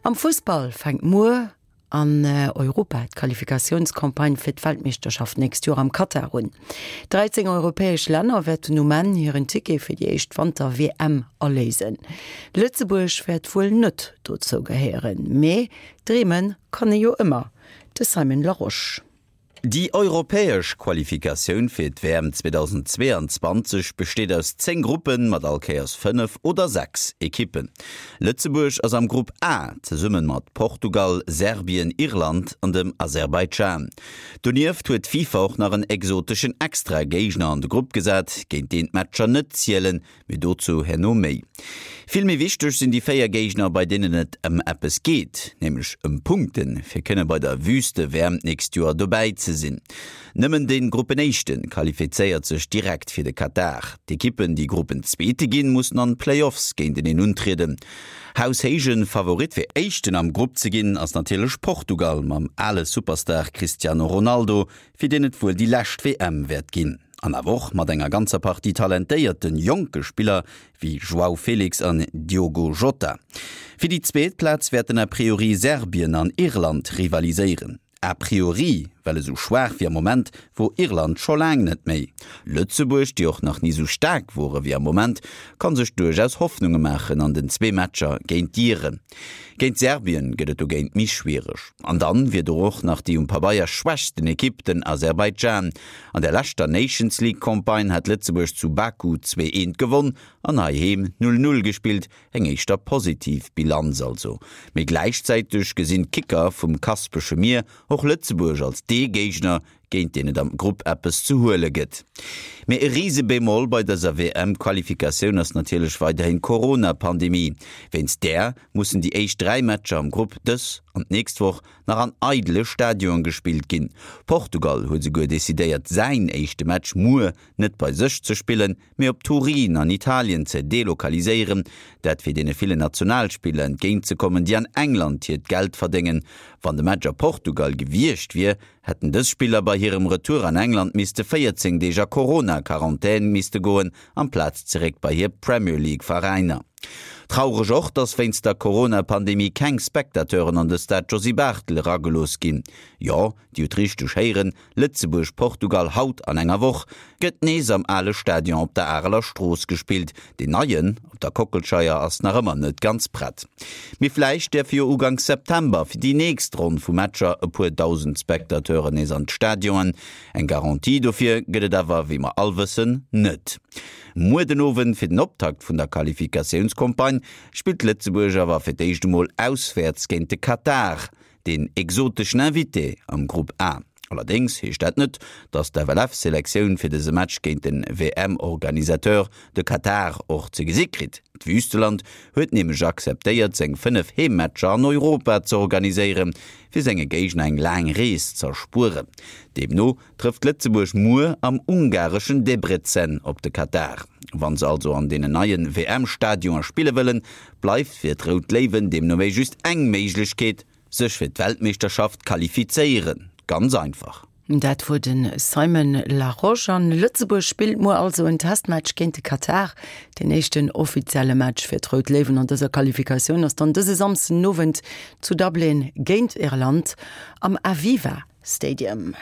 Am Fussball fänkt muer an Europa d'Qualifikatiounscampagne fir d'Weltmeeschterschaft d'nächst Joer am Katar un. 13 europäesch Länner wäerten um Enn hiren Ticket fir déi éischt Wanter-WM aléisen. Lëtzebuerg wäert wuel net dozou gehéieren, mee dreeme kann ee jo ëmmer. De Simon Larosche. Déi europäesch Qualifikatioun fir d'WM 2022 besteet aus 10 Gruppen mat all Kéiers 5 oder 6 Ekippen. Lëtzebuerg ass am Grupp A zesumme mat Portugal, Serbien, Irland an dem Aserbaidschan. Donieft huet d'FIFA och nach en exoteschen Extra-Géigner an de Grupp gesat, géint deen d'Matcher net zielen, Mee dozou herno méi. Vill méi wichteg sinn déi 4 Géigner, bei deenen et ëm eppes geet, nämlech ëm Punkten, fir kënne bei der Wüste-WM d'nächst Joer dobäi ze sinn. Nëmmen de Gruppenéischte qualifizéiert sech direkt fir de Katar. D'Ekippen, déi Gruppenzweete ginn, mussen an Playoffs géinteneen untrieden. Haushéije Favorit fir Éischten am Grupp ze ginn, ass natierlech Portugal mam ale Superstar Cristiano Ronaldo, fir deen et wuel déi lescht WM wäert ginn. An awer och mat enger ganzer Partie talentéierte jonke Spiller wéi João Felix an Diogo Jota. Fir déi zweet Plaz wäerten a priori Serbien an Irland rivaliséieren. A priori, well esou schwaach wéi am Moment wor Irland scho laang net méi. Lëtzebuerg, déi och nach ni esou staark wore wéi am Moment, kann sech duerchaus Hoffnunge maachen an den zwee Matcher géint d'Iren. Géint Serbien gëtt et dogéint méi schwiereg. An dann wier do och nach déi um Pabeier schwächsten Ekipp, den Aserbaidschan. An der leschter Nations League Campagne hat Lëtzebuerg zu Baku 2, 1 gewonn an heiheem 0, 0 gespillt, eng éischter positiv Bilanz also. Mee gläichzäiteg gesinn d'Kicker vum Kaspesche Mier och Lëtzebuerg als dee Géigner, géint deen et am Grupp eppes ze huele gëtt. Mee e Rise-Bémol bei dëser WM-Qualifikatioun ass natierlech weiderhin d'Corona-Pandemie. Wéinst där mussen déi éischt 3 Matcher am Grupp dës an d'nächst Woch nach an eidele Stadionen gespillt ginn. Portugal huet esouguer decidéiert säin éischte Match muer net bei sech ze spillen, mee op Turin an Italien ze delokaliséieren. Dat fir deene villen Nationalspiller entgéint ze kommen, déi an England hiert Geld verdéngen. Wann de Match a Portugal gewiescht wier, hätten dës Spiller bei hirem Retour an England misste 14 Deeg a Corona-Quarantän misste goen, amplaz zeréck bei hir Premier League Veräiner. Traureg och, dass wéinst der Corona-Pandemie keng Spectateuren an de Stade Josy Barthel eragelooss ginn. Jo, Dir hutt richteg héieren, Lëtzebuerg-Portugal haut an enger Woch gëtt nees am ale Stadion op der Areler Strooss gespillt. Deen neien op der Kockelscheier ass nach ëmmer net ganz prett. Mee vläicht däerfe jo uganks September fir déi nächst Ronn vu Matcher e puer dausend Spectateuren nees an d'Stadionen. Eng Garantie dofir gëtt et awer, wéi mer all wëssen, net. Muer den Owend fir den Optakt vun der Qualifikatiounscampagne spillt Lëtzebuerg awer fir d'éischt emol auswäerts géint de Katar, deen exoteschen Invité am Grupp A. Allerdéngs heescht dat net, datt d'FLF-Selektioun fir dëse Match géint den WM-Organisateur, de Katar, och ze gesi kritt. D'Wüsteland huet nämlech akzeptéiert, seng 5 Heemmatcher an Europa ze organiséieren, fir senge Géigner eng laang Rees z'erspueren. Deemno trëfft Lëtzebuerg muer am ungareschen Debrecen op de Katar. Wa se also an deenen neie WM-Stadioner spille wëllen, bleift fir d'Rout Léiwen deemno wéi just eng Méiglechkeet, sech fir d'Weltmeeschterschaft qualifizéieren. Ganz einfach. Dat wor de Simon Larosche. An Lëtzebuerg spillt muer also en Testmatch géint de Katar. Deen éischten offizielle Match fir d'Rout Léiwen an dëser Qualifikatioun ass dann dëse Samsden Owend zu Dublin géint Irland am Aviva Stadium.